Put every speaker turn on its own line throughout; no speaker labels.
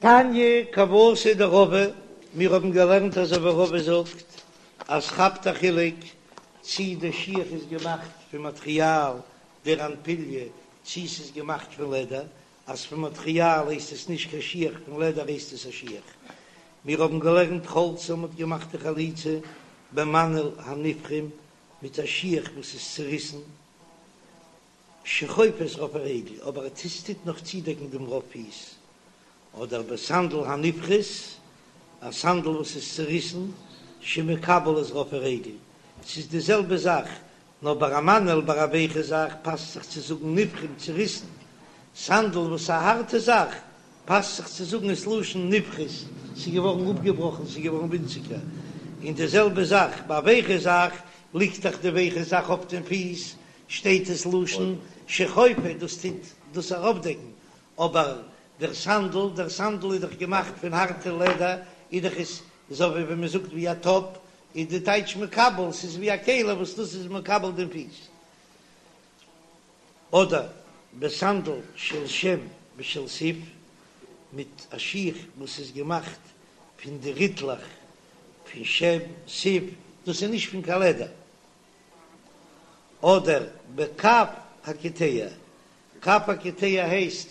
תניא כוותיה דרבא, מיר האבן געלערנט אזוי ווי רבא זאגט אז כאפט א חילוק צי די שיך איז געמאכט פון מאטריאל דער אנפיליה צי ס'איז געמאכט פון לעדער, אז פון מאטריאל הייסט עס נישט קיין שיך פון לעדער הייסט עס א שיך. מיר האבן געלערנט חלצה מ'האט געמאכט די חליצה במנעל הנפרם מיט א שיך וואס איז צוריסן שחופה את רוב הרגל, אבער עס טוט נאך צודעקן דעם רוב פיס, אדער בסנדל הנפחת, א סנדל וואס איז צוריסן, שמקבל את רוב הרגל, ס'איז די זעלבע זאך, נאר ביי א מנעל ביי א ווייכע זאך פאסט זיך צו זאגן נפרם צוריסן, סנדל וואס איז א הארטע זאך פאסט זיך צו זאגן עס לשון נפחת, ס'איז געווארן אפגעבראכן, ס'איז געווארן ווינציגער, און די זעלבע זאך ביי א ווייכע זאך, ליגט דאך די ווייכע זאך אויף דעם פיס, שטייט עס לשון שחופה, דאס טוט דאס אראפדעקן, אבער דער סנדל, דער סנדל איז דאך געמאכט פון הארטע לעדער, איז דאך עס אזוי ווי ווען מען זאגט ווי א טאפ, איז די טייטש מקבל, ס'איז ווי א כלי וואס דאס איז מקבל דעם פיס. אדער בסנדל של שום ושל סיב, מיט א שיך וואס איז געמאכט פון די ריטלעך פון שום, סיב, דאס איז נישט פון קיין לעדער. אדער בקב הקיטע, קב הקיטע הייסט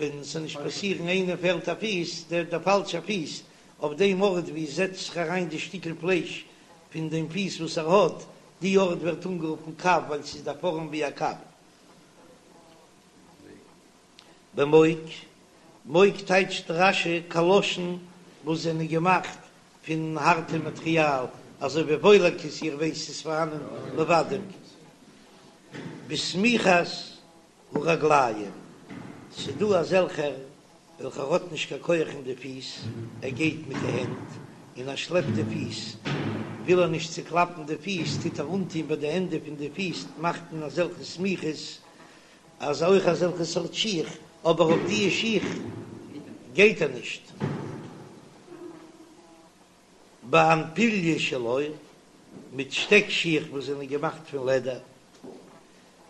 ווען ס'זאל נישט פאסירן איינער פעלט א פיס, דער דער פאלשע פיס, אויף דעם ארט ווי עס זעצט זיך אריין די שטיקל פלייש פון דעם פיס וואס ער האט, די ארט ווערט אנגערופן קב ווייל ס'איז די פארעם ווי א קב. במוק, מוק טייטשט רש"י קאלאשן וואס זענען געמאכט פון הארטע מאטריאל, אזוי ווי וואוילעקעס, איר ווייסט ס'איז פארהאנען לבדים. בסמיכת הרגליים, ס'דא אזעלכער וועלכער האט נישט קיין כח אין די פיס, ער גייט מיט די הענט און ער שלעפט די פיס, וויל ער נישט צוקלאפן די פיס טוט ער אנטוהן ביי די ענדע פון די פיס מאכט מען אזעלכע סמיכות, אז אויך אזעלכע סארט שיך, אבער אויף דיע שיך גייט ער נישט. באנפיליא של עור, מיט שטעק שיך וואס זענען געמאכט פון לעדער,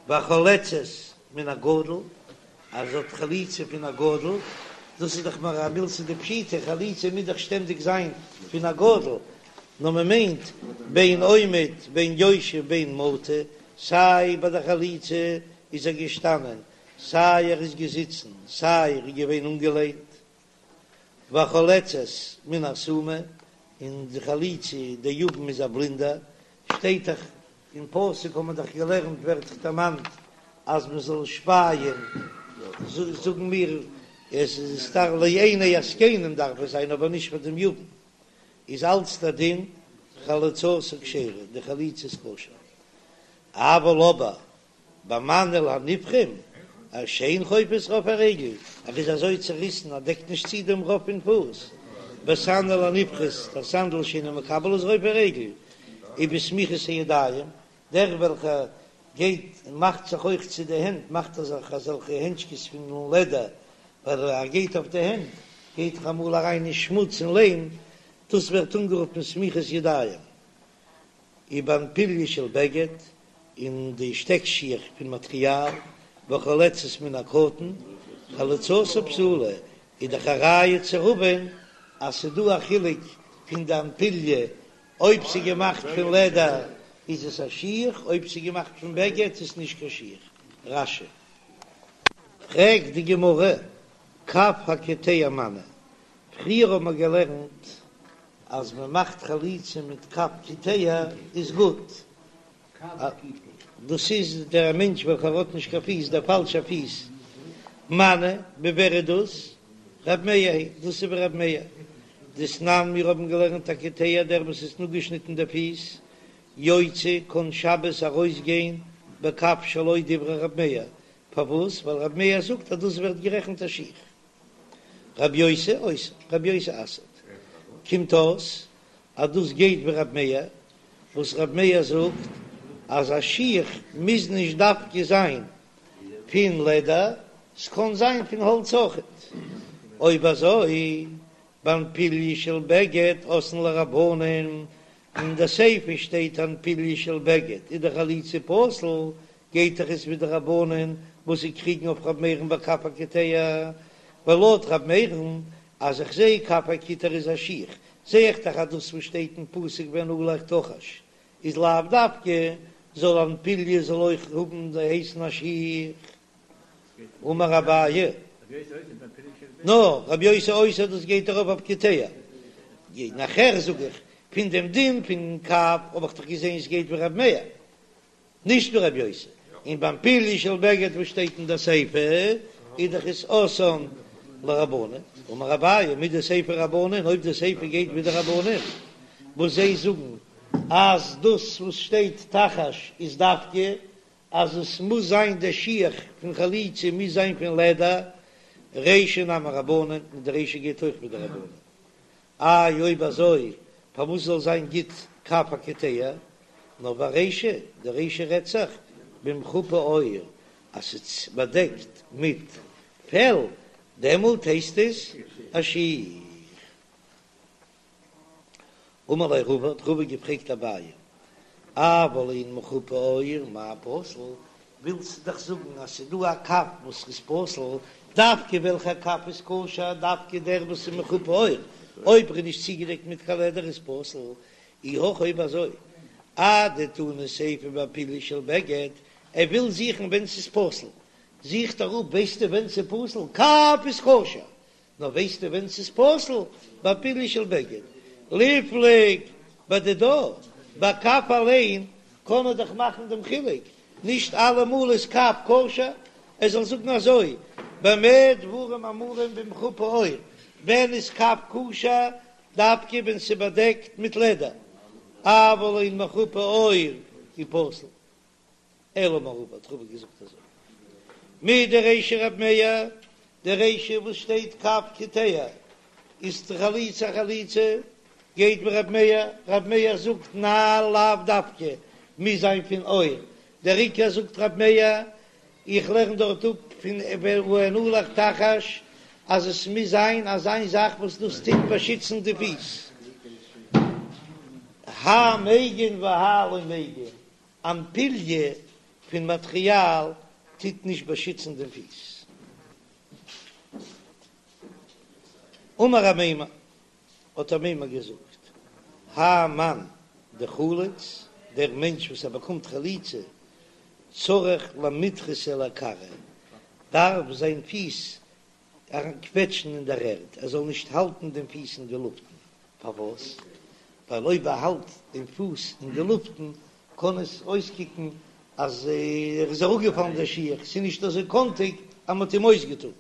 והחולצת מן הגדול, אז זי האט חליצה פון א גדול, דאס איז דאך מער א מילתא דפשיטא, חליצה מוז דאך שטענדיג זיין פון א גדול, נאר מען מיינט בין עומד בין יושב בין מטה, סיי ביי די חליצה איז ער געשטאנען, סיי ער איז געזיצן, סיי ער איז געווען אנגעלענט, והחולצת מן הסומא, און די חליצה די יבם איז א בלינדער, שטייט דאך אין פסוק האט מען דאך געלערנט ווערט דאך דערמאנט אז מען זאל שפייען, זאגן מיר עס איז סתם לעיני הזקנים דארף עס זיין אבער נישט פאר דעם יבם, איז אלץ דער דין חליצתה כשרה, די חליצה איז כשר, אבל אבער במנעל הנפרם, אז שאין חופה את רוב הרגל, ער איז אזוי צוריסן אז דעקט נישט צו דעם רוב פון פוס, בסנדל הנפחת, דער סנדל שאינו מקבל את רוב הרגל, ובסמיכות הידיים, דער וועלכער גייט און מאכט זיך אויך צו די הענט, מאכט ער זיך אזעלכע הענטשקעס פון לעדער, ווייל ער גייט אויף די הענט, גייט דאך אמאל אריין אין שמוץ און ליים, דאס ווערט אנגערופן סמיכות ידיים. ובאנפיליא של בגד, און די שטעק שיך פון מאטריאל, והחולצת מן הקטן, חליצתה פסולה, איז דאך א ראיה צו רבא'ן אז ס'דא א חילוק פון די אנפיליא, אויב ס'איז געמאכט פון לעדער איז עס א שיך, אויב ס'איז געמאכט פון בגד איז עס נישט קיין שיך. רש"י. פרעגט די גמרא, קב הקיטע מני, פריער האט מען געלערנט אז מען מאכט חליצה מיט קב קיטע איז גוט, דאס איז דער מענטש וועלכער האט נישט קיין פיס, דער פאלשער פיס, מני, ווי ווער איז דאס? רב מאיר היא, דאס איז ווי רב מאיר, דתנן מיר האבן געלערנט הקיטע דער וואס איז אפגעשניטן די פיס, יוצא קען שבת ארויסגיין בקב שלו דברי רב מאיר, פארוואס? ווייל רב מאיר זאגט אז דאס ווערט גערעכנט א שיך. רבי יוסי אוסר, רבי יוסי אסר'ט. קומט אויס אז דאס גייט ווי רבי מאיר, וואס רבי מאיר זאגט אז א שיך מוז נישט דווקא זיין פון לעדער, ס'קען זיין פון האלץ אויכעט. אויב אזוי, באנפיליא של בגד אתאן לרבנן, אין די סיפא שטייט אנפיליא של בגד איז די חליצה פסול, גייט דאך עס ווי די רבנן וואס זיי קריגן אויף ר' מאיר'ן בקב הקיטע, ווייל לויט ר' מאיר'ן. אז איך זע כף הקיטור איז א שיך, זע איך דאך אז דאס וואס שטייט אין פסוק ונעלך תחש איז לאו דווקא, זאל אנפיליה זאל אויך האבן הייסן א שיך. אמר אביי, נא, רבי יוסי אוסר דאס גייט ארויף אויף קיטע. נאכער זאג איך, פון דעם דין פון כף האב איך דאך געזען עס גייט ווי רבי מאיר. נישט ווי רבי יוסי, און ביים פליה של בגד וואס שטייט אין די סיפא איז דאך עס אתאן לרבנן, אמר אביי מדסיפא רבנן, אויב די סיפא גייט ווי די רבנן וואס זיי זאגן אז דאס וואס שטייט תחש איז דווקא אז עס מוז זיין די שיך פון חליצה מוז זיין פון לעדער, רישא נמי רבנן, און די רישא גייט אויך ווי די רבנן. איי אויב אזוי פארוואס זאל זיין גוט כף הקיטע? נאר ברישא, די רישא רעדט זיך במחופה עור, אז ס'איז באדעקט מיט פעל, דעמאלט הייסט עס א שיך. אמר ליה רבא, האט רבא געפרעגט אביי, אבל אין מחופה עור מאי פסול, ווילסט דאך זאגן אז ס'איז דא א כף וואס איז פסול, דווקא וועלכע כף איז כשר, דווקא דער וואס איז מחופה עור, אויב ער איז נישט צוגעדעקט מיט קיין לעדער איז פסול, אי הכי אויב אזוי, אדתני סיפא בפליה של בגד, ער וויל זוכן ווען ס'איז פסול, זוכט ער אפ, ווייסטו ווען ס'איז פסול, כף איז כשר, נאר ווייסטו ווען ס'איז פסול? ביי פליה של בגד. ליפלוג בדידה, ביי כף אליין קען מען דאך מאכן דעם חילוק, נישט אלעמאל איז כף כשר, ער זאל זאגן אזוי, במה דברים אמורים במחופה עור, ווען איז כף כשר? דווקא ווען ס'איז באדעקט מיט לעדער, אבל אין מחופה עור איז פסול. אלא אמר רבא האט רבא געזאגט אזוי מדרישא רב מאיר, די רישא וואס שטייט כף קיטע איז די חליצה חליצה גייט ווי רב מאיר, רב מאיר זאגט נעל לאו דווקא מוז זיין פון עור, דער עיקר זאגט רב מאיר איך לערן דארט אפ פון ונעלך תחש אז עס מוז זיין אזא זאך וואס דאס טוט באשיצן די פיס, האי מגין והאי לא מגין, אנפיליה פון מאטריאל טוט נישט באשיצן דעם פיס. אמר אמימר, האט אמימר געזאגט, האי מאן דחליץ, דער מענטש וואס ער באקומט חליצה, צריך למידחסיה לכרעיה, דארף זיין פיס אריינקוועטשן אין דער ערד, ער זאל נישט האלטן דעם פיס אין די לופטן, פארוואס? ווייל אויב ער האלט דעם פוס אין די לופטן קען עס אויסקוקן אז ער איז אראפגעפאלן דער שיך, ס'איז נישט אזוי קאנטיג אז מ'האט אים אויסגעטון.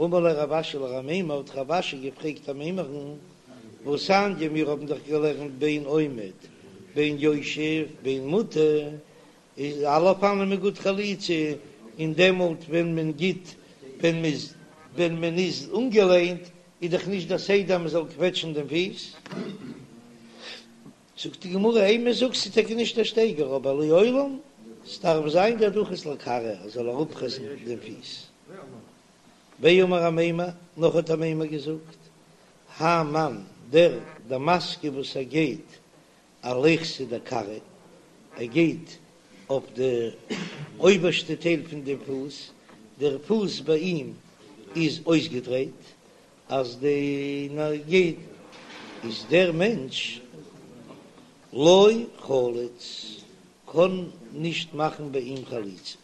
אמר ליה רב אשי לאמימר, האט רב אשי געפרעגט אמימר'ן, והתניא, מיר האבן דאך געלערנט בין עומד בין יושב בין מוטה, איז אלע אופנים איז גוט חליצה, און דעמאלט ווען מען גיט ווען מ'איז ווען מען איז אנגעלענט איז דאך נישט דער סדר אז מען זאל קוועטשן דעם פיס. זאגט די גמרא אימא זאג ס'איז טאקע נישט דער שטייגער אבער לעולם ס'דארף זיין דדחיס לכרעיה ער זאל אראפפרעסן דעם פיס. ואמר אמימר, נאך האט אמימר געזאגט, האי מאן דער דמסגי וואס ער גייט אליכתא דכרעיה, ער גייט אויף די אויבערשטע טייל פון דעם פוס, דער פוס ביי אים איז אויסגעדרייט, אז די גייט איז דער מענטש לא חליץ, קען נישט מאכן ביי אים חליצה.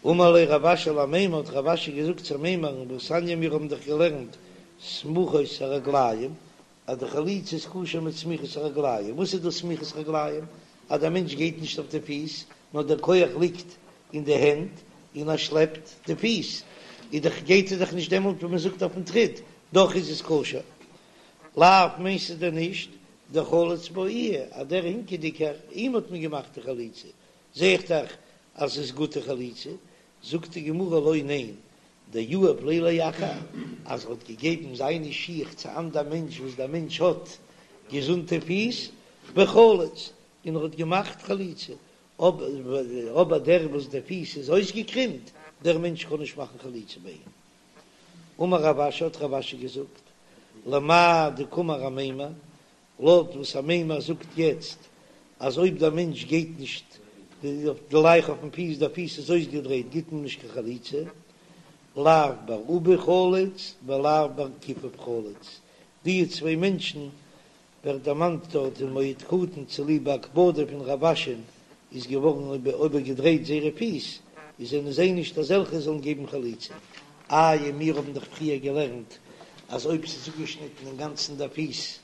אמר ליה רב אשי לאמימר, האט רב אשי געזאגט צו אמימר'ן, והתניא מיר האבן דאך געלערנט סמוכות הרגליים, אז די חליצה איז כשר מיט סמיכות הרגליים, וואס איז דאס סמיכות רגליים? אז דער מענטש גייט נישט אויף די פיס, נאר דער כח ליגט אין די הענט און ער שלעפט די פיס, איז דאך גייט ער דאך נישט דעמאלט ווי מען זאגט אויפן טריט, דאך איז עס כשר. לאו מיינסטו דען נישט דחליץ בה איהו אז דער הינקעדיגער אים האט מען געמאכט די חליצה, זע איך דאך אז עס איז גוטע חליצה, זאגט די גמרא לא ניין, דיהיב ליה לאחר, אז ער האט געגעבן זיינע שיך צו אנדער מענטש וואס דער מענטש האט געזונטע פיס, וחליץ, און ער האט געמאכט חליצה, אבער דער וואס די פיס איז אויסגעקרימט, דער מענטש קען נישט מאכן חליצה ביי אים. אמר רב אשי האט רב אשי געזאגט, למאי דקאמר אמימר, לויט וואס אמימר זאגט יעצט אז אויב דער מענטש גייט נישט. גלייך אויפן פיס, דער פיס איז אויסגעדרייט גיט מען נישט קיין חליצה, לאו בר אובי חליץ ולאו בר כיפוף חליץ, די צוויי מענטשן ווערט דערמאנט דארט אין מועד קטן צוליב א הקפדה פון רב אשי'ן איז געווארן איבערגעדרייט זייערע פיס, איז זענען זיי נישט אזעלכע זאלן געבן חליצה. איי מיר האבן דאך פריער געלערנט אז אויב ס'איז אפגעשניטן אינגאנצן דער פיס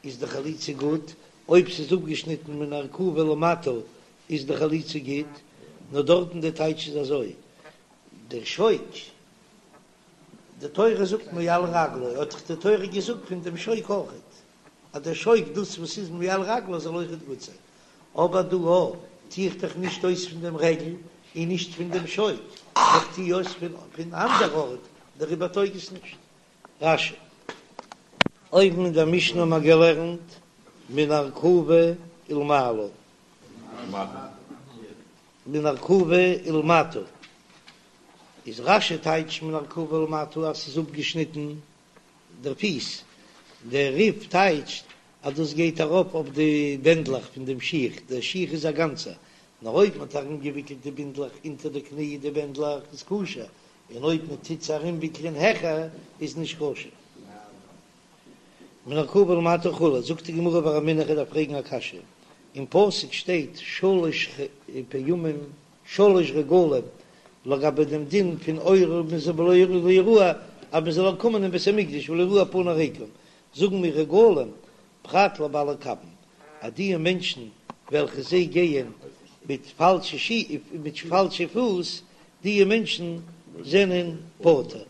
איז די חליצה גוט, אויב ס'איז אפגעשניטן מן הארכובה ולמטה איז די חליצה גוט, נאר דארטן די טייטש איז אזוי, דער שוק, די תורה זאגט מעל רגלו, האט דאך די תורה געזאגט פון דעם שוק אויכעט, אז דער שוק דאס וואס איז מעל רגלו זאל אויכעט גוט זיין, אבער דא א טו איך דאך נישט אויס פון דעם רגל און נישט פון דעם שוק, איך טו אויס פון אנדער ארט, דעריבער טויג עס נישט. רש"י. אויבן אין דער משנה האבן מיר געלערנט מן ארכובה ולמעלה. מן ארכובה ולמטה. איז רש"י טייטש מן ארכובה ולמטה אז ס'איז אפגעשניטן דער פיס. דער רי"ף טייטשט אז דאס גייט ארויף אויף די בענדלעך פון דעם שיך, דער שיך איז א גאנצער, נאר אויב מ'האט ארומגעוויקלט די בינדלעך אונטער די קני די בענדלעך איז כשר, און אויב מען טוט עס ארומוויקלען העכער איז נישט כשר. מן הארכובה ולמטה וכו', זאגט די גמרא ורמינהו איך דארף פרעגן א קשיא, אין פסוק שטייט שלש פעמים שלש רגלים לגבי דעם דין פון עולה ולא יראה אז מען זאל קומען אין בית המקדש ולא יראו פני ריקם, זאגן מיר רגלים פרט לבעלי קבין אז די מענטשן וועלכע זיי גייען מיט פאלשע שי מיט פאלשע פוס, די מענטשן זענען פטור.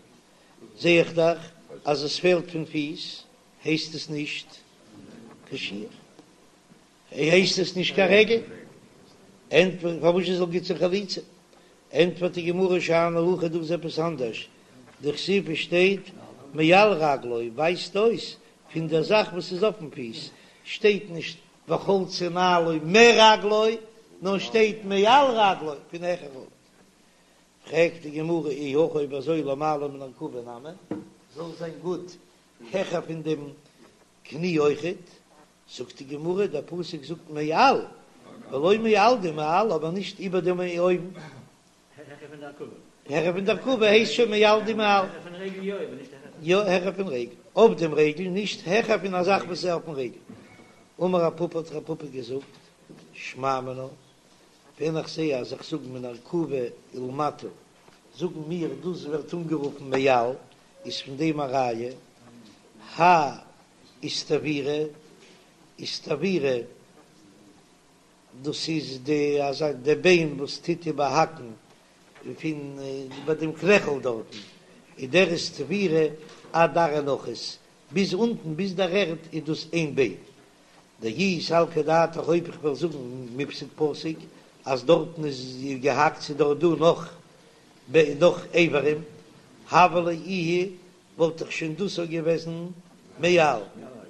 זע איך דאך אז עס פעלט פון פיס, הייסט עס נישט קיין שיך, הייסט עס נישט קיין רגל, ענטפערט פארוואס זאל גוט זיין חליצה? ענטפערט די גמרא שאני הכא דא איז עפעס אנדערש, דכתיב עס שטייט מעל רגלו ווייזט אויס פון דער זאך וואס איז אויפן פיס, שטייט נישט וחלצה נעלו מרגלו, נאר שטייט מעל רגלו פון העכער ארט. פרעגט די גמרא אי הכי אויב אזוי למעלה מן הארכובה נמי, זאל זיין גוט העכער פון דעם קני אויכעט, זאגט די גמרא דער פסוק זאגט מעל ולא מעל דמעל אבער נישט איבער דעם אויבן.
העכער פון די ארכובה.
העכער פון די ארכובה הייסט שוין מעל דמעל.
העכער פון רגל יא אבער נישט העכער.
יא העכער פון רגל, אויף דעם רגל, נישט העכער פון א זאך וואס איז אויפן רגל. אמר רב פפא האט רב פפא געזאגט, שמע מינה, ווען איך זעה אז איך זאג מן הארכובה ולמטה, זאגן מיר דאס ווערט אנגערופן מעל, איז פון דעם א ראיה, האי איסתוירא, איסתוירא, דאס איז די אזא די ביין וואס טוט איבערהאקן פון ביי דעם קנעכל דארטן, איז דער איסתוירא עד ארעא נחית, ביז אונטן ביז דער ערד איז דאס איין ביין. דאי סלקא דעתך אויב איך וועל זאגן מיפסק פסיק אז דארטן איז געהאקט ס'איז דארט דא נאך נאך איברים, הוה ליה איהו וואלט דאך שוין דאס אויך געוועזן מעל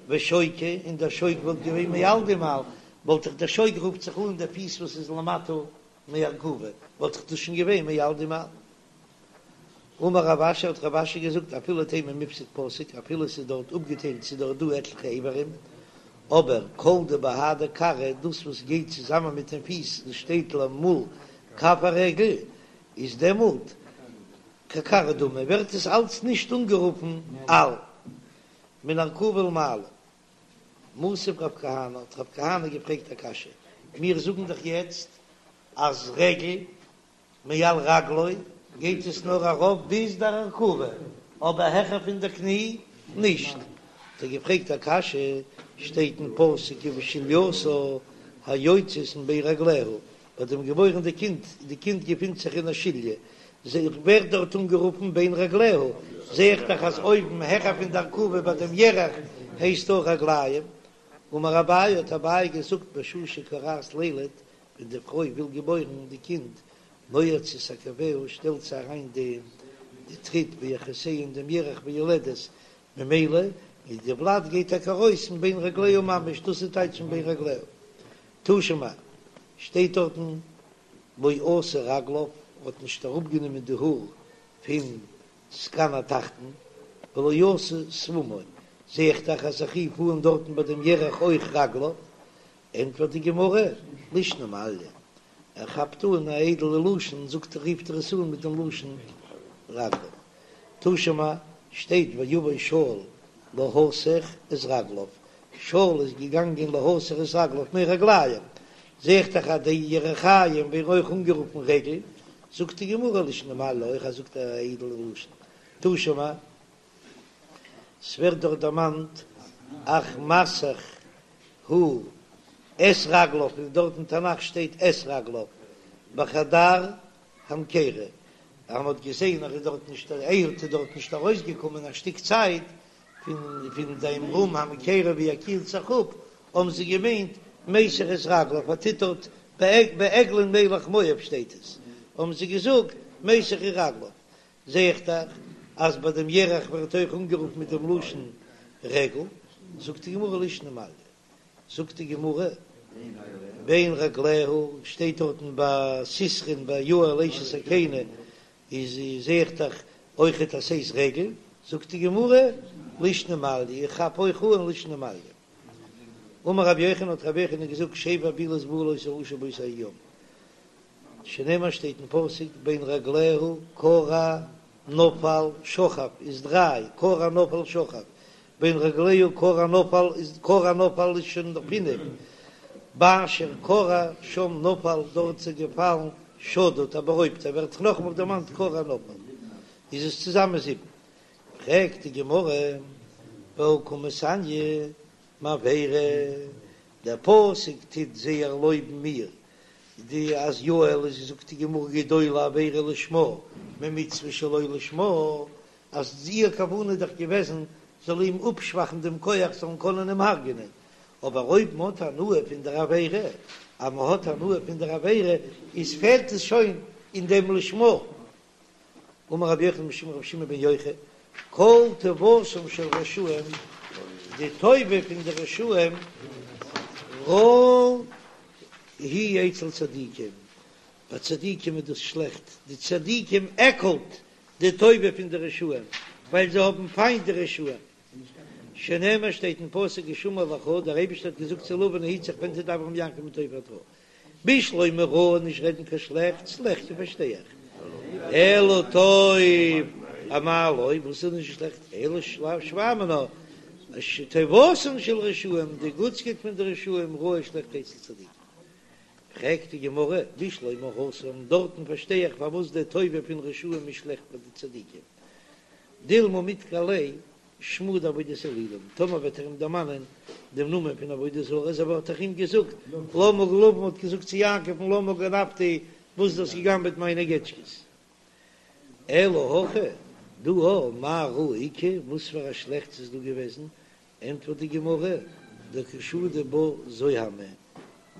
ושוקא, און דער שוק וואלט געווען מעל דמעל, וואלט דאך דער שוק רופט זיך אן דער פיס וואס איז למטה מארכובה, וואלט דאך דאס שוין געווען מעל דמעל. אמר רב אשי האט רב אשי געזאגט אפילו תימא מיפסק פסיק אפילו עס איז דארט אפגעטיילט ס'איז דארט דא עטליכע איברים, אבער כל דבהדי כרעא דאס וואס גייט צוזאמען מיטן פיס דאס שטייט למול כף הרגל איז דעמאלט ככרעא דמי ווערט עס אלץ נישט אנגערופן על מן הארכובה ולמעלה. מתיב רב כהנא האט רב כהנא געפרעגט א קשיא, מיר זאגן דאך יעצט אז רגל מעל רגלו גייט עס נאר ארויף ביז דער ארכובה, אבער העכער פון דער קני נישט, האט ער געפרעגט א קשיא, שטייט אין פסוק ובשלייתה היוצאת מבין רגליה, ביי דעם געבוירן די קינד, די קינד געפינט זיך אין א שליה, זע איך ווערט דארט אנגערופן בין רגליה, זע איך דאך אז אויבן העכער פון די ארכובה ביי דעם ירך הייסט אויך רגליים. אמר אביי האט אביי געזאגט בשעה שכורעת לילד, ווען די פרוי וויל געבוירן די קינד, נועצת עקביה שטעלט זי אריין די די טריט בירכותיה אין דעם ירך ויולדת, ממילא איז די ולד גייט טאקע ארויס מבין רגליה ממש, דאס איז טייטש מבין רגליה. תא שמע, שטייט דארטן לא עשה רגליו, האט נישט אראפגענומען די האר פון זקן התחתון, ולא עשה שפמו, זע איך דאך אז איך רוף אן דארטן ביי דעם ירך אויך רגליו, ענטפערט די גמרא, לישנא מעליא. ער כאפט אן א איידעלע לשון זאגט ער רופט ער עס אן מיט דעם לשון רגליו. תא שמע, שטייט ויבא שאול להסך את רגליו, שאול איז געגאנגען להסך את רגליו מרגליים, זע איך דאך אז די ירכיים ווערן אויך אנגערופן רגל, זאגט די גמרא לישנא מעליא אויך אז זאגט א איידעלע לשון. תא שמע, ס'ווערט דארט דערמאנט אך מסך הוא את רגליו, און דארט אין תנך שטייט את רגליו בחדר המקירה, אז מ'האט געזען אז ער איז דארט נישט אהוד איז דארט נישט ארויסגעקומען א שטיק צייט פון פון דעם רום המקירה ווי ער קילט זיך אפ, האבן זיי געמיינט מיסך את רגליו, ער טוט דארט בעגלון מלך מואב שטייט עס, האבן זיי געזאגט מיסך את רגליו, זע איך דאך אז ביי דעם ירך ווערט אויך אנגערופן מיט דעם לשון רגל, זאגט די גמרא לישנא מעליא, זאגט די גמרא בין רגליה, שטייט דארטן ביי סיסרא'ן ביי יעל אשת הקיני, איז זע איך דאך אויכעט אז ס'איז רגל, זאגט די גמרא לישנא מעליא, איך כאפ אויך אן לישנא מעליא. אמר רבי יוחנן האט רבי יוחנן געזאגט שבע בעילות בא לאותו רשע באותו היום, שנאמר שטייט אין פסוק בין רגליה כרע נפל שכב איז דריי, כרע נפל שכב, בין רגליה כרע נפל איז כרע נפל איז שוין פינף, באשר כרע שם נפל דארט איז ער געפאלן שדוד א בארויבטער ווערט דאך נאכאמאל דערמאנט כרע נפל איז עס צוזאמען זיבן, פרעגט די גמרא והא קא מתעניא מעבירה, דער פסוק טוט זייער לויבן מיר די אז יעל איז זאגט די גמרא גדולה עבירה לשמה ממצוה שלא לשמה, אז איר כוונה איז דאך געוועזן זאל אים אפשוואכן דעם כח זאלן קענען אים הרג'נען, אבער אויב מ'האט הנאה פון דער עבירה, אז מ'האט הנאה פון דער עבירה איז פעלט עס שוין אין דעם לשמה. אמר רבי יוחנן משום רבי שמעון בן יוחאי, כל טובתם של רשעים, די טובה פון די רשעים, רעה היא אצל צדיקים, ביי צדיקים איז דאס שלעכט, די צדיקים עקלט די טובה פון די רשעים, ווייל זיי האבן פיינט די רשעים, שנאמר שטייט אין פסוק השמר לך, דער אייבערשטער האט געזאגט צו לבן היט זיך פן תדבר עם יעקב מה טוב עד רע, בשלמא רע נישט רעדן קיין שלעכטס, ליחכי פארשטיי איך, אלא טוב אמאי לא, וואס איז נישט שלעכט, אלא שמע מינה, שטובתן של רשעים, די גוטסקייט פון די רשעים רעה שלעכט אצל צדיקים. פרעגט די גמרא, בשלמא התם, דארטן פארשטיי איך פארוואס די טובה פון רשעים איז שלעכט פאר די צדיקים, דילמא מדכר ליה שמא דעבודת אלילים, טאמער וועט ער אים דערמאנען דעם נאמען פון עבודה זרה, אזוי ווי ער האט דאך אים געזאגט, למה לבן האט געזאגט צו יעקב'ן למה גנבת, וואס דו האסט געגנבעט מיינע געטשקעס. אלא הכא, דא הא, מאי רעה איכא, וואס פאר א שלעכטס איז דא געוועזן, ענטפערט די גמרא, דקא שדי בה זוהמא,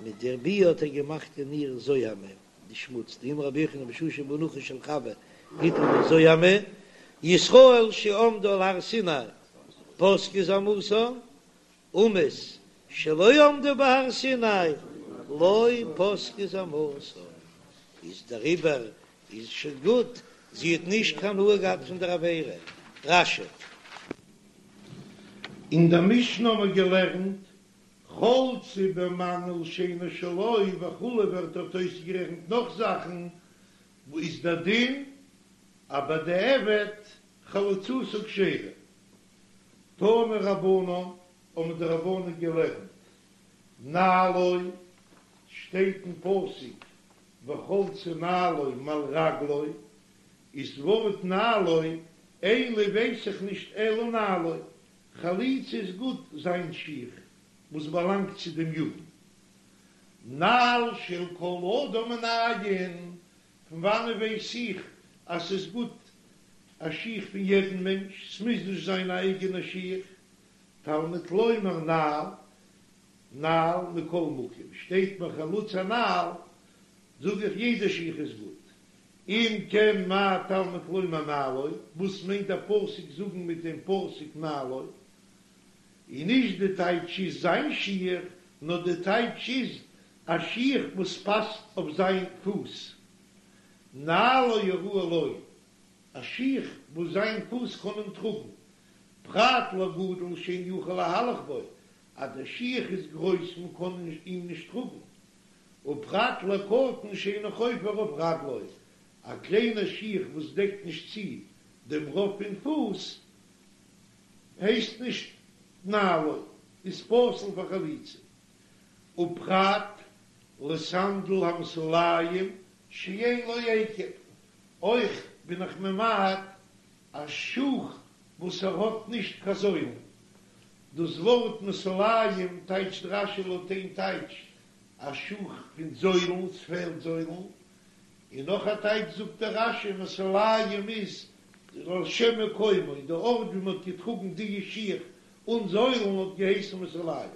מיט דער ביאה האט ער געמאכט אין איר זוהמא, די שמוץ, דאמר רבי יוחנן בשעה שבא נחש על חוה הטיל בה זוהמא, ישראל שעמדו על הר סיני פסקה זוהמתן, אומות שלא עמדו בהר סיני לא פסקה זוהמתן, איז דעריבער איז שוין גוט, זי האט נישט קיין הנאה געהאט פון דער עבירה. רש"י.
אין דער משנה האבן מיר געלערנט חלצה במנעול שאינו שלו וכו' ווערט דארט אויסגערעכנט נאך זאכן, וואו איז דער דין אז בדיעבד חליצתה כשרה? תנו רבנן האבן די רבנן געלערנט נעלו, שטייט אין פסוק וחלצה נעלו מעל רגלו, איז ווארט נעלו אין לי ווייס איך נישט אלא נעלו, חליצה איז גוט זיין שיך וואס באלאנגט צו דעם יבם. נעל של כל אדם מנין, פון וואנען ווייס איך אז ס'איז גוט א שיך פון יעדן מענטש, ס'מוז נישט זיין א אייגענע שיך, תלמוד לומר נעל, נעל מכל מקום, שטייט ביי חלוץ הנעל, זאג איך יעדע שיך איז גוט. אם כן מה תלמוד לומר נעלו, וואס מיינט דער פסוק זאגן מיט דעם פסוק נעלו? און נישט די טייטש איז זיין שיך, נאר די טייטש איז א שיך וואס פאסט אויף זיין פוס. נעלו הראוי לו, א שיך וואס זיין פוס קען אים טראגן, פרט לגדול שאין יכול להלך בו, אז דער שיך איז גרויס מען קען אים נישט טראגן. ופרט לקטן שאינו חופה רוב רגלו, א קליינע שיך וואס דעקט נישט צו דעם רוב פון פוס הייסט נישט נעלו, איז פסול פאר חליצה. ופרט לסנדל המסוליים שאין לו עקב, אויך בין איך ממעט א שוך וואס ער האט נישט קיין זוילן. דאס ווארט מסוליים טייטשט רש"י לויט איין טייטש א שוך פון זוילן, ס'פעלט זוילן, און נאך א טייטש זאגט דער רש"י מסוליים איז על שם מקומו, די ארט ווי מ'האט געטראגן די שיך אן זוילן האט געהייסן מסוליים.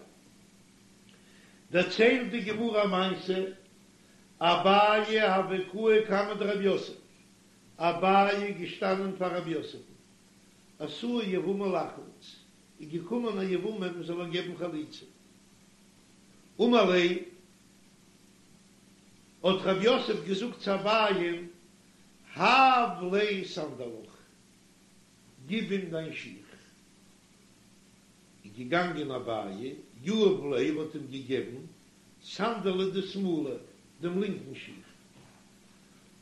דערציילט די גמרא א מעשה, אביי הוה קאי קמיה דרב יוסף, אביי איז געשטאנען פאר רב יוסף'ן, אתא יבמה לחלוץ, איז געקומען א יבמה מען זאל איר געבן חליצה, אמר ליה, האט רב יוסף געזאגט צו אביי'ן, הב ליה סנדלך, גיב אים דיין שיך. איז געגאנגען אביי, יהב ליה האט אים געגעבן סנדלא דשמאלא, דעם לינקן שיך.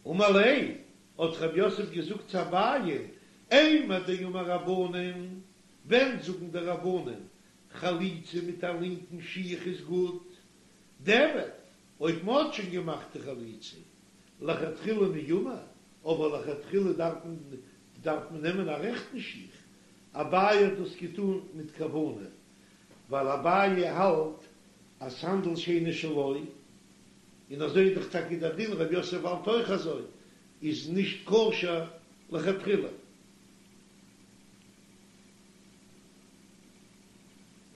אמר ליה, האט רב יוסף געזאגט צו אביי, אימר דאמור רבנן, ווען זאגן די רבנן חליצה מיט א לינקן שיך איז גוט, דיעבד, אויב מען האט שוין געמאכט די חליצה, לכתחילה מי אמור, אבער לכתחילה דארף מען דארף מען נעמען א רעכטן שיך, אביי האט דאס געטון מיט כוונה, ווייל אביי האלט אז סנדל שאינו שלו, און אזוי איז דאך טאקע דער דין, רב יוסף האלט אויך אזוי, איז נישט כשר לכתחילה.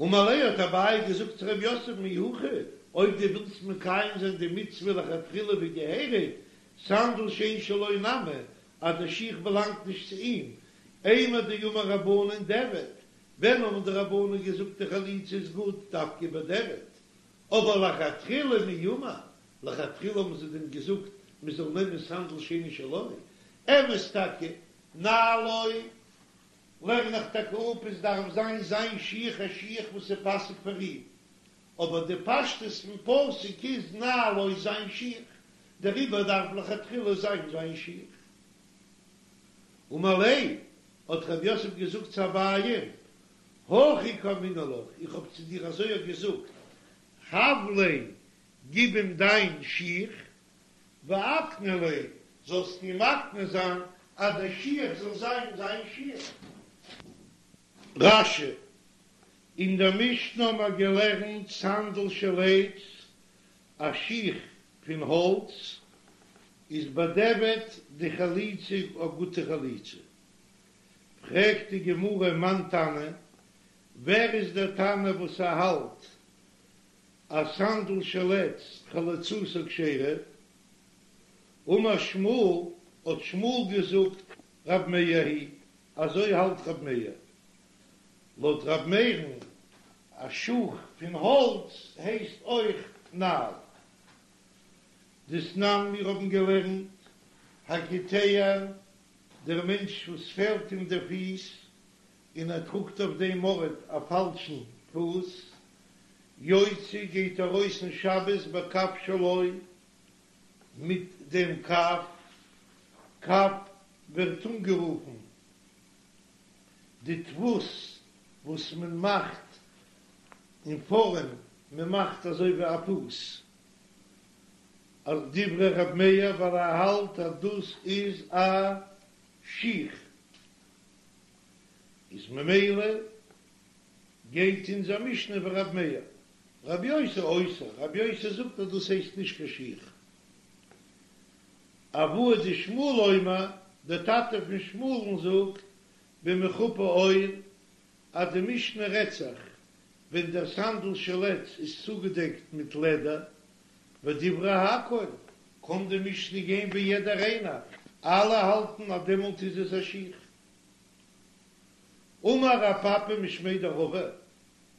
אמר ליה האט אביי געזאגט צו רב יוסף אי הכי, אויב דו ווילסט מקיים זיין די מצוה לכתחילה ווי געהעריג, סנדל שאין שלו נמי, אז דער שיך באלאנגט נישט צו אים, אימר דאמור רבנן דיעבד, ווען האבן די רבנן געזאגט די חליצה איז גוט דווקא בדיעבד, אבער לכתחילה מי אמור, לכתחילה האבן זיי דען געזאגט מען זאל נעמען סנדל שאינו שלו, אמת טאקע, נעלו לערן איך טאקע אפ עס דארף זיין זיין שיך א שיך וואס איז פאסיג פאר אים, אבער די פשטות פון פסוק איז נעלו זיין שיך, דעריבער דארף לכתחילה זיין זיין שיך. אמר ליה, האט רב יוסף געזאגט צו אביי, הכי קאמינא לך, איך האב צו דיר אזוי געזאגט, הב ליה, גיב אים דיין שיך, ואקני ליה, זאלסט אים מקנה זיין אז דער שיך זאל זיין זיין שיך. רש"י, אין דער משנה האבן מיר געלערנט סנדל של עץ, א שיך פון האלץ, איז בדיעבד די חליצה א גוטע חליצה. פרעגט די גמרא מאן תנא, ווער איז דער תנא וואס ער האלט אז סנדל של עץ חליצתו כשרה? אמר שמואל, האט שמואל געזאגט, רב מאיר היא, אזוי האלט רב מאיר. לויט רב מאיר'ן, א שוך פון האלץ הייסט אויך נעל. דתנן מיר האבן געלערנט, הקיטע, דער מענטש וואס פעלט אים דער פיס, און ער טראגט אויף דעם ארט א פאלשן פוס, יוצא גייט ארויס אין שבת בקב שלו, מיט דעם קב, קב ווערט אנגערופן די דפוס וואס מען מאכט אין פארעם, מען מאכט אזוי ווי א פוס, אז דברי ר' מאיר ווייל ער האלט אז דאס איז א שיך, איז ממילא גייט אונזער משנה ווי ר' מאיר, רבי יוסי אוסר, רבי יוסי זאגט אז דאס הייסט נישט קיין שיך. אבוה דשמואל אומר, דער טאטע פון שמואל'ן זאגט במחופה עור, אז די משנה רעדט זיך ווען דער סנדל של עץ איז צוגעדעקט מיט לעדער, ודברי הכל, קען די משנה גיין ווי יעדער איינער, אלע האלטן אז דעמאלט איז עס א שיך. אמר רב פפא משמיה דרבא,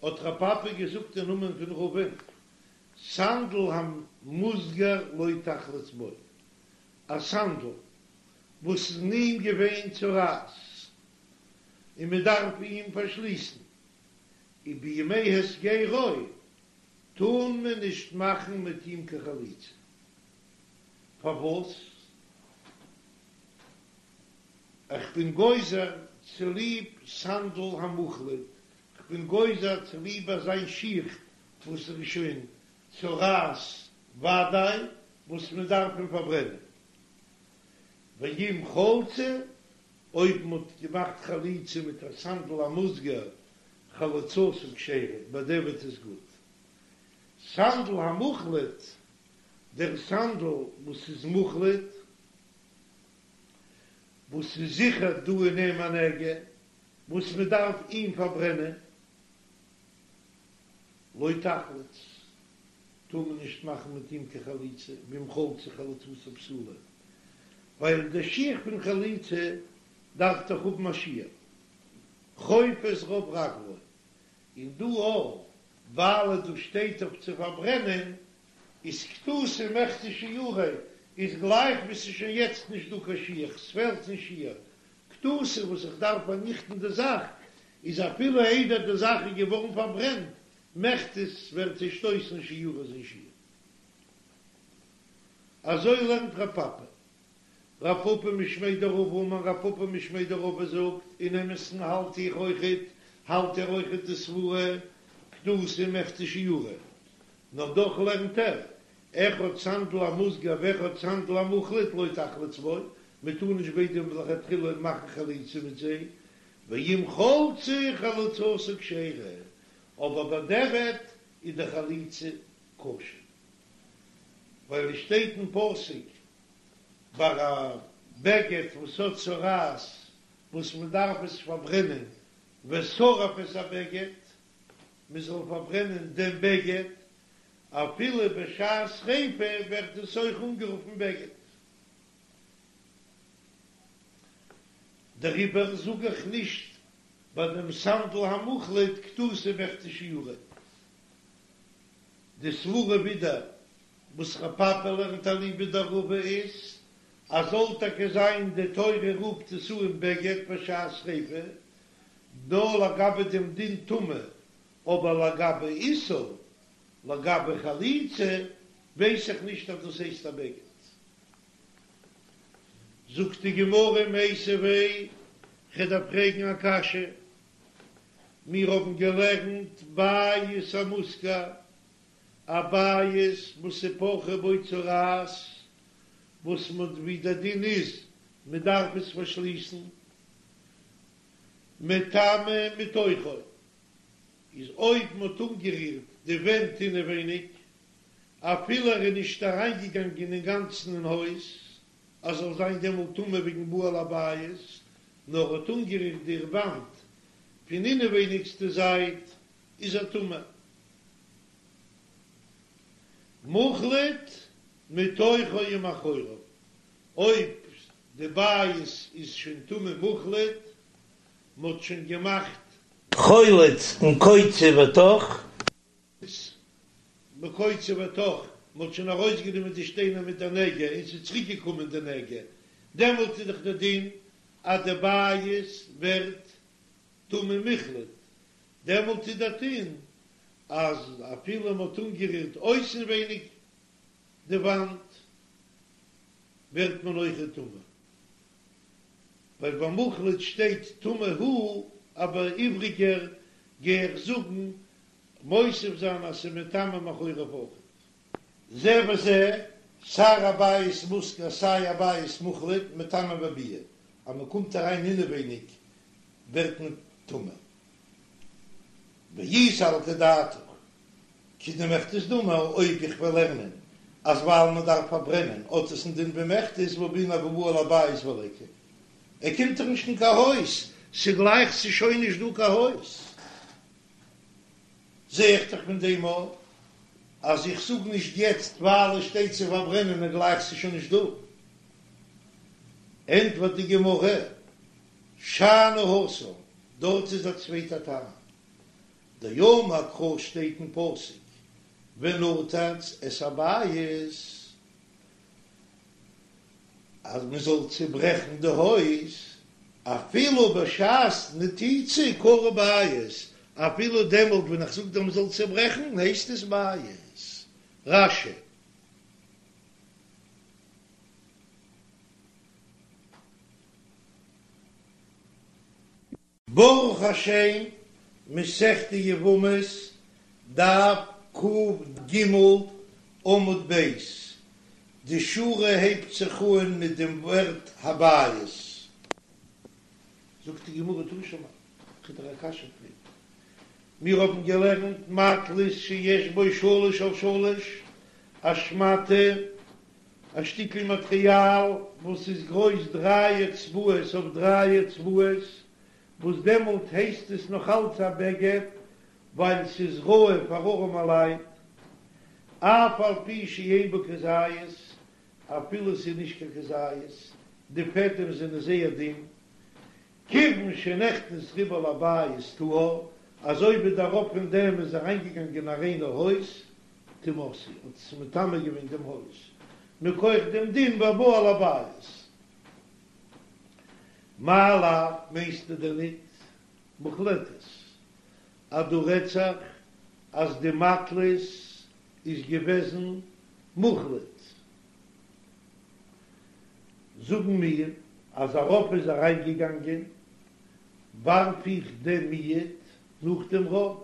האט רב פפא געזאגט אין נאמען פון רבא'ן, סנדל המוסגר לא תחלוץ בו, א סנדל וואס איז אין אים געווען צרעת און מען דארף אים פארשליסן, ובימי הסגרו. טאר מען נישט מאכן מיט אים קיין חליצה. פארוואס? איך בין גוזר צוליב סנדל המוחלט, כ'בין גוזר צוליב אזיין שיך וואס איז שוין צרעת ודאי וואס מען דארף אים פארברענען. ואם חלצה, אויב מען האט געמאכט חליצה מיט א סנדל המוסגר, חליצתה כשרה, בדיעבד איז גוט. סנדל המוחלט, דער סנדל וואס איז מוחלט, וואס איז זיכער דא אין אים א נגע, וואס מען דארף אים פארברענען, לא תחלוץ, טאר מען נישט מאכן מיט אים קיין חליצה, ואם חלצה חליצתה פסולה, ווייל די שיך פון חליצה דארף דאך האבן א שיעור, חופה את רוב רגלו, און דא אויך, ווייל דא שטייט אויף צו פארברענען, איז כתותי מיחתי שיעוריה, איז גלייך ווי ס'איז שוין יעצט נישט דא קיין שיך, ס'פעלט אין שיעור, כתותי וואס איך דארף פארניכטן די זאך, איז אפילו איידער די זאך איז געווארן פארברענט, מיחתי ווערט צעשטויסן שיעוריה זיין שיעור. אזוי לערנט רב פפא. רב פפא משמיה דרבא אמר רב פפא משמיה דרבא זאגט, אין אמת'ן האלט איך אויכעט, האלט ער אויכעט די סברה, כתותי מיחתי שיעוריה. נאר דאך לערנט ער, אחד סנדל המוסגר ואחד סנדל המוחלט לא תחלוץ בו, מען טאר נישט ביידע לכתחילה מאכן חליצה מיט זיי, ואם חלצה חליצתה כשרה, אבער בדיעבד איז די חליצה כשר, ווייל עס שטייט אין פסוק ביי א בגד וואס האט צרעת וואס מען דארף עס פארברענען ושרף את הבגד, מען זאל פארברענען דעם בגד, אפילו בשעת שריפה ווערט עס אויך אנגערופן בגד. דעריבער זאג איך נישט ביי דעם סנדל המוחלט כתותי מיחתי שיעוריה. די סברה ווידער וואס רב פפא לערנט אליבא דרבא איז אז זאל טאקע זיין די תורה רופט עס אן בגד בשעת שריפה, נאר לגבי דעם דין טומאה, אבער לגבי איסור, לגבי חליצה, ווייס איך נישט אז דאס הייסט א בגד. זאגט די גמרא מיתיבי, כ'דארף פרעגן א קשיא, מיר האבן געלערנט בית המוסגר, א בית וואס איז פרחה בו צרעת, וואס מ'האט ווי דער דין איז מ'דארף עס פארשליסן, מטמא מתוכו, איז אויב מ'האט אנגערירט די ווענט אינעווייניג, אפילו ער איז נישט אריינגעגאנגען אינגאנצן אין הויז, אז זאל זיין דעמאלט טמא וועגן בא אל הבית, נאר האט אנגערירט די וואנט פון אינעווייניגסטע זייט, איז ער טמא. מוחלט מתוכו ומאחוריו, אויב די בית איז שוין טמא מוחלט, מ'האט שוין געמאכט.
חולץ און קוצה ותוך.
בקוצה ותוך, מ'האט שוין ארויסגענומען די שטיינער מיט די נגע און ס'איז צוריק געקומען די נגע, דעמאלט איז דאך די דין אז די בית ווערט טמא מוחלט, דעמאלט איז די דין אז אפילו מ'האט אנגערירט אויסנווייניג די וואנט ווערט מען אויכעט טמא, ווייל ביי מוחלט שטייט טמא הוא, אבער איבריגער גיי איך זאגן מוסיף זיין אז ס'איז מטמא מאחוריו אויכעט. זה וזה, סיי א בית מוסגר סיי א בית מוחלט, מטמא בביאה, אז מ'קומט אריין אינעווייניג ווערט מען טמא. ואי סלקא דעתך, כדמחתות דמי, אויב איך וועל לערנען אז ווייל מען דארף פארברענען האט עס א דין ווי מחתות והא בעינן הא בא אל הבית וליכא, ער קומט דאך נישט אין קיין הויז, ס'גלייך ס'איז שוין נישט דא קיין הויז. זע איך דאך פון דעם אויך אז איך זאג נישט יעצט ווייל עס שטייט צו פארברענען און גלייך ס'איז שוין נישט דא. ענטפערט די גמרא, שאני התם, דארט איז א צווייטע טעם, דאמר קרא שטייט אין פסוק ונתץ את הבית אז מען זאל צוברעכן די הויז, אפילו בשעת נתיצה קרוי בית, אפילו דעמאלט ווען איך זאג דיר מ'זאל צעברעכן הייסט עס בית. רש"י. ברוך השם, מסכת יבמות, דף ק"ג, עמוד ב', די שורה הייבט זיך אן מיט דעם ווארט הבית. זאגט די גמרא תא שמע, כ'וועל דיר א קשיא פרעגן, מיר האבן געלערנט מטלית שיש בו שלש על שלש, א שמאטע, א שטיקל מאטריאל וואס איז גרויס דריי אצבעות אויף דריי אצבעות, וואס דעמאלט הייסט עס נאך אלץ א בגד ווייל ס'איז ראוי פאר ארעמעלייט, אף על פי שאין בו כזית, אפילו ס'איז נישט קיין כזית, די פעדעם זענען זייער דין, כיוון שנכנס רובה לבית טהור, אזוי ווי דער רוב פון דעם איז אריינגעגאנגען אין א ריינע הויז, טמאתהו, האט עס מטמא געווען דעם הויז, מכח דעם דין והבא על הבית. מאי לאו, מיינסטו דען ניט מוחלטת אז דא רעדט זיך אז די מטלית איז געוועזן מוחלט? זאגן מיר אז א רוב איז אריינגעגאנגען, ווארף איך דעם מיעוט נאך דעם רוב.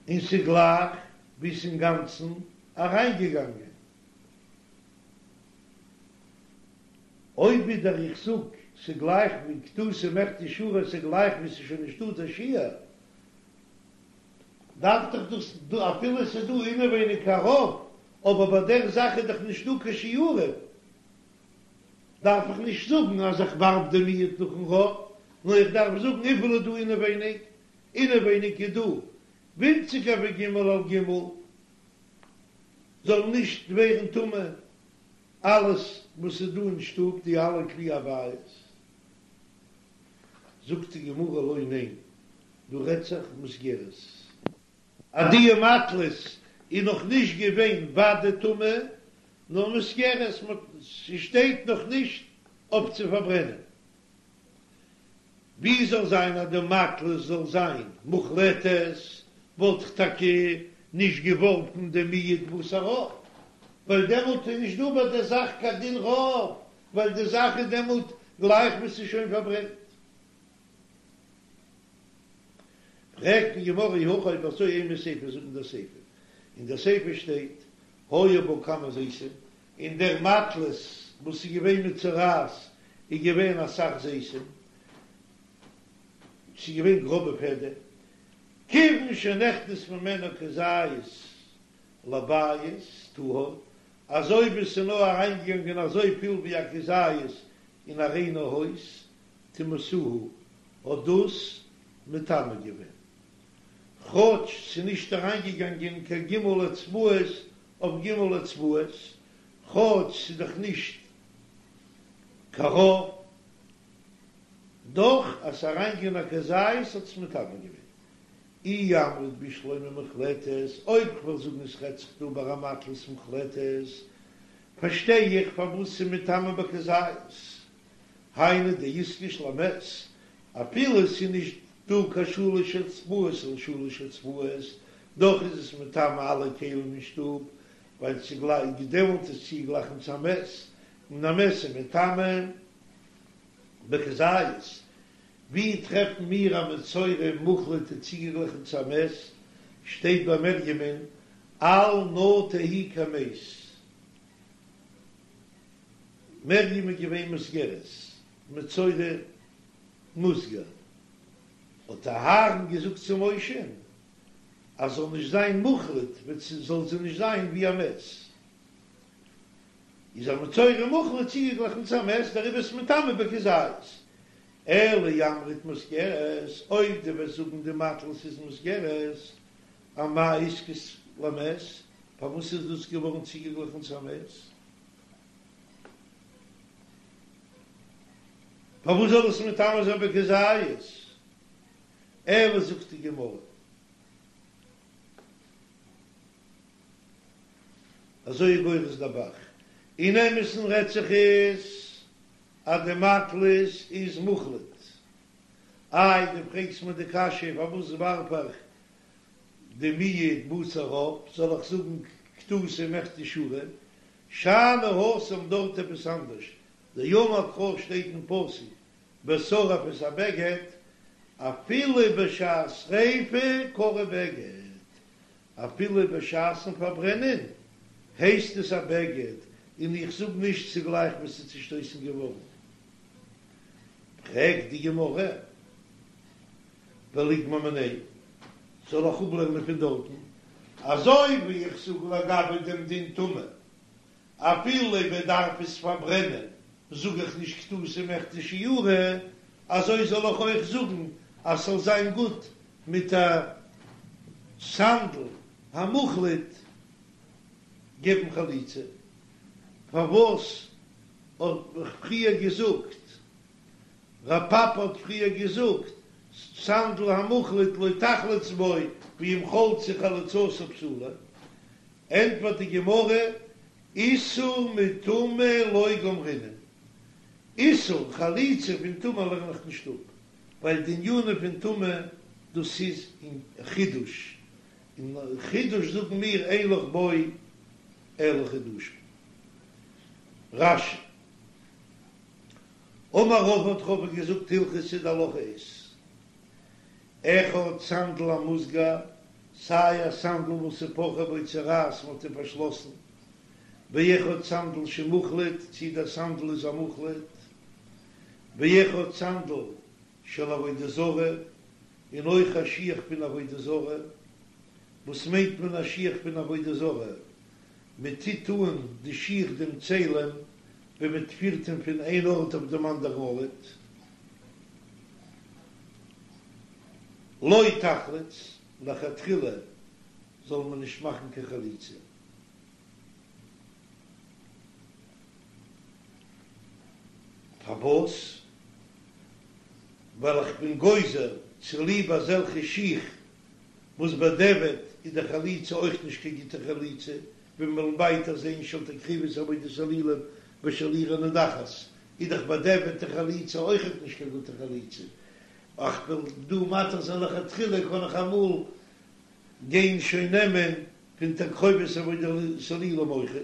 און ס'גלייך ווי ס'אינגאנצן אריינגעגאנגען. אויב ווידער איך זאג ס'גלייך ווי כתותי מכדי שערא ס'גלייך ווי ס'שוין נישטא דער שיעור, דארף דאך דאס אפילו ס'איז דא אינעווייניג א רוב, אבער ביי דער זאך איז דאך נישטא קיין שיעורים. דארף איך נישט זאגן אז איך ווארף די מיעוט נאכן רוב, נאר איך דארף זאגן וויפיל איז דא אינעווייניג, אינעווייניג איז דא ווינציגער ווי ג' על ג', זאל נישט ווערן טמא אלעס וואס איז דא אין שטוב, די אלע כלי הבית. זאגט די גמרא לא ניין, דא רעדט זיך מוסגרת. אז די מטלית איז נאך נישט געווען ודאי טמא, נאר מוסגרת, ס'שטייט נאך נישט אויף צו פארברענען. ווי זאל זיין אז די מטלית זאל זיין מוחלטת, וואלט איך טאקע נישט געווארפן די מיעוט בתר רוב, ווייל דעמאלט איז נישט דא ביי דער זאך קיין דין רוב, ווייל די זאך איז דעמאלט גלייך ווי ס'איז שוין פארברענט. פרעגט די גמרא אי הכי אויב אזוי אימא סיפא זאג אין דער סיפא, אין דער סיפא שטייט היו בה כמה זיתים, אין דער מטלית וואס איז געווען מצורעת איז געווען אסאך זיתים, ס'איז געווען גראבע פעדעם, כיוון שנכנס ממנו כזית לבית טהור, אזוי ווי ס'איז נאר אריינגעגאנגען אזוי פיל ווי א כזית אין א ריינע הויז, טמאתהו האט דאס מטמא געווען, כאטש ס'איז נישט אריינגעגאנגען קיין ג' אצבעות אויף ג' אצבעות, כאטש ס'איז דאך נישט קיין רוב, דאך אז ס'איז אריינגעגאנגען א כזית האט עס מטמא געווען. אי אמרת בשלמא מוחלטת, אויב כ'וועל זאגן עס רעדט זיך דא ביי א מטלית מוחלטת, פארשטיי איך פארוואס ס'איז מטמא בכזית, היינו דאיתקש למת, אפילו ס'איז נישט דא קיין שלש אצבעות על שלש אצבעות, דאך איז עס מטמא אלע כלים אין שטוב, ווייל ס'גלייך דעמאלט איז צוגלייכן צו א מת, און א מת איז מטמא בכזית. ווי טרעפן מיר א מצורע מוחלט איז צוגעגליכן צו א מת? שטייט ביי מרים'ן אל נא תהי כמת. מרים איז געווען מוסגרת, מצורע מוסגר, האט אהרן געזאגט צו משה'ן אז זאל נישט זיין מוחלט, זאל זי נישט זיין ווי א מת, איז א מצורע מוחלט צוגעגליכן צו א מת, דעריבער איז מטמא בכזית. אלא אי אמרת מוסגרת, אויב דו וועסט זאגן די מטלית איז מוסגרת, אמאי איתקש למת, פארוואס איז דאס געווארן צוגעגליכן צו א מת? פארוואס זאל עס מטמא זיין בכזית? אלא זאגט די גמרא, אזוי איז גורס דער ב"ח, אין אמת'ן רעדט זיך עס. אז די מטלית איז מוחלט. איי דו פרעגסט מיר די קשיא פארוואס ווארף איך די מיעוט בשר עוף, זאל איך זאגן כתותי מכדי שיעורא, שאני התם דארט עפעס אנדערש, דאמר קרא שטייט אין פסוק בשרף את הבגד, אפילו בשעת שריפה קרוי בגד, אפילו בשעת'ן פארברענען הייסט עס א בגד, און איך זאג נישט צוגלייך וואס ס'איז צושטויסן געווארן. פרעגט די גמרא, וליגמר מיניה, זאל איך אפלערנען פון דארטן, אזוי ווי איך זאג לגבי דעם דין טומאה, אפילו מען דארף עס פארברענען, זאג איך נישט כתותי מכדי שיעורא, אזוי זאל איך אויך זאגן אז ס'זאל זיין גוט מיט א סנדל המוחלט געבן חליצה. פארוואס האב איך פריער געזאגט, רב פפא האט פריער געזאגט, סנדל המוחלט לא תחלוץ בו ואם חלצה חליצתה פסולה, ענטפערט די גמרא, איסור מטומאה לא גמרינן, איסור חליצה פון טומאה לערן איך נישט אפ, ווייל די ענינים פון טומאה דאס איז אין חידוש, און חידוש זאגן מיר אין לך בו אלא חידושין. רש"י, אמר רבא האט רבא געזאגט הלכתא די הלכה איז אחד סנדל המוסגר, סיי א סנדל וואס איז פרחה בו צרעת מ'האט אים פארשלאסן, ואחד סנדל שמוחלט, צי דער סנדל איז א מוחלט, ואחד סנדל של עבודה זרה, און אויך א שיך פון עבודה זרה, וואס מיינט מען א שיך פון עבודה זרה? מען טוט אן די שיך דעם צלם ווען מען פירט אים פון איין ארט אויף דעם אנדערן ארט. לא תחלוץ, לכתחילה זאל מען נישט מאכן קיין חליצה. פארוואס? ווייל איך בין גוזר צוליב אזעלכע שיך וואס בדיעבד איז די חליצה אויך נישט קיין גוטע חליצה, ווי מיר וועלן ווייטער זען של תקרובת עבודת אלילים ושל עיר הנידחת, איז דאך בדיעבד די חליצה אויכעט נישט קיין גוטע חליצה, איך וועל דא מתיר זיין לכתחילה קען איך אמאל גיין שוין נעמען פון תקרובת עבודת אלילים אויכעט.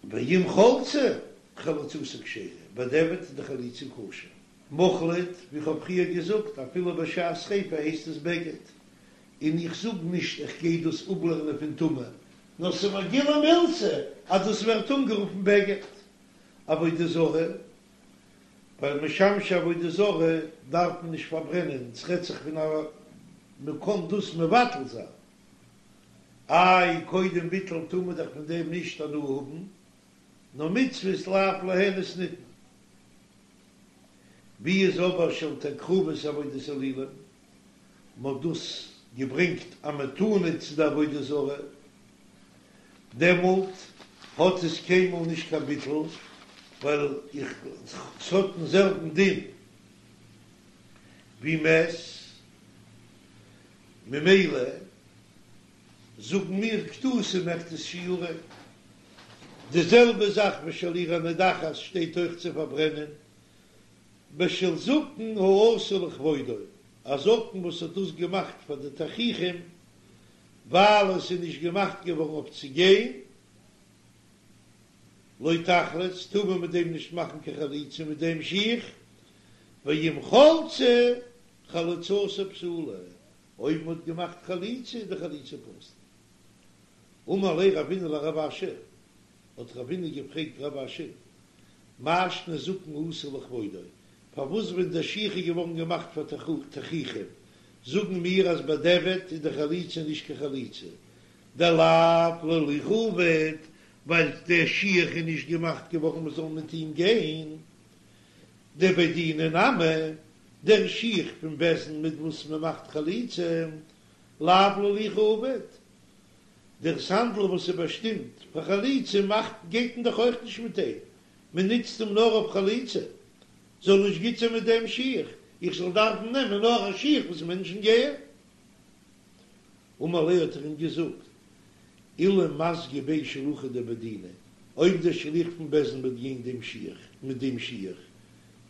ואם חלצה, חליצתה כשרה, בדיעבד איז די חליצה כשר. מוחלט, ווי כ'האב פריער געזאגט, אפילו בשעת שריפה הייסט עס בגד, און איך זאג נישט איך גיי דאס אפלערנען פון טומאה, נאר ס'איז מיר גילוי מילתא אז דאס ווערט אנגערופן בגד. עבודה זרה, ווייל משמשי עבודה זרה דארף מען נישט פארברענען, ס'רעדט זיך פון א מ'קען דאס מבטל זיין. איי קודם ביטול טאר מען דאך פון דעם נישט הנאה האבן, נאר מצוות לאו ליהנות ניתנו. ווי איז אבער של תקרובת עבודת אלילים, מ'האט דאס געברענגט א מתנה צו די עבודה זרה, דעמאלט האט עס קיינמאל נישט קיין ביטול, ווייל איך ס'האט דעם זעלבן דין ווי מת. ממילא זאגן מיר כתותי מכדי שיעורא. די זעלבע זאך ושל עיר הנידחת שטייט אויך צו פארברענען, ושל זקן העשוי לכבודו, א זקן וואס האט דאס געמאכט פאר די תכריכים, ווייל עס איז נישט געמאכט געווארן אויף צו גיין, לא תחלוץ, טאר מען מיט דעם נישט מאכן קיין חליצה מיט דעם שיך, ואם חלצה חליצתה פסולה, אויב מען האט געמאכט חליצה איז די חליצה פסול. אמר ליה רבינא לרב אשי, האט רבינא געפרעגט רב אשי, מאי שנא זקן העשוי לכבודו, פארוואס ווען דער שיך איז געווארן געמאכט פאר תכריכים, זאגן מיר אז בדיעבד איז די חליצה נישט קיין חליצה, דלאו להילוכא עביד, ווייל דער שיך איז נישט געמאכט געווארן מען זאל מיט אים גיין, דבי דינא נמי, דער שיך פון בית דין מיט וואס מען מאכט חליצה, לאו להילוכא עביד, דער סנדל וואס איז באשטימט פאר חליצה מאכט גייט מען דאך אויך נישט מיט אים, מען נוצט אים נאר אויף חליצה, זאל נישט גוט זיין מיט דעם שיך, איך זאל דארפן נעמען נאר א שיך וואס מענטשן גייען. אמר ליה האט ער אים געזאגט. אילו מסגי ביה שלוחא דבי דינא, אויב דער שליח פון בית דין וועט גיין דעם שיך, מיט דעם שיך,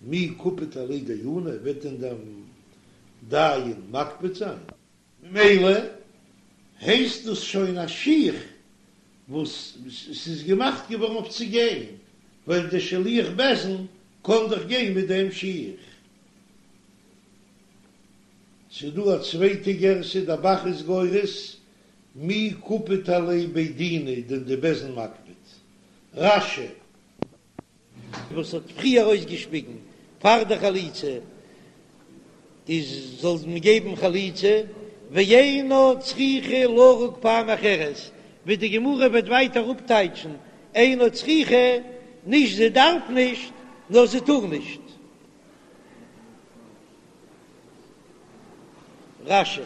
מי קפיד עליה דיינא, וועט דען דער דיין מקפיד זיין? ממילא הייסט דאס שוין א שיך וואס ס'איז געמאכט געווארן אויף צו גיין, ווייל דער שליח בית דין קען דאך גיין מיט דעם שיך. ס'איז דא א צווייטע גירסא, דער ב"ח איז גורס, מי קפיד עליה בי דינא דען די בית דין מקפיד. רש"י.
וואס האט פריער אויסגעשפיגן פאר די חליצה איז זאל מען געבן חליצה, ואינה צריכה לרוק פעם אחרת, ווי די גמרא וועט ווייטער אפטייטשן אינה צריכה, נישט זי דארף נישט, נאר זי טאר נישט. רש"י.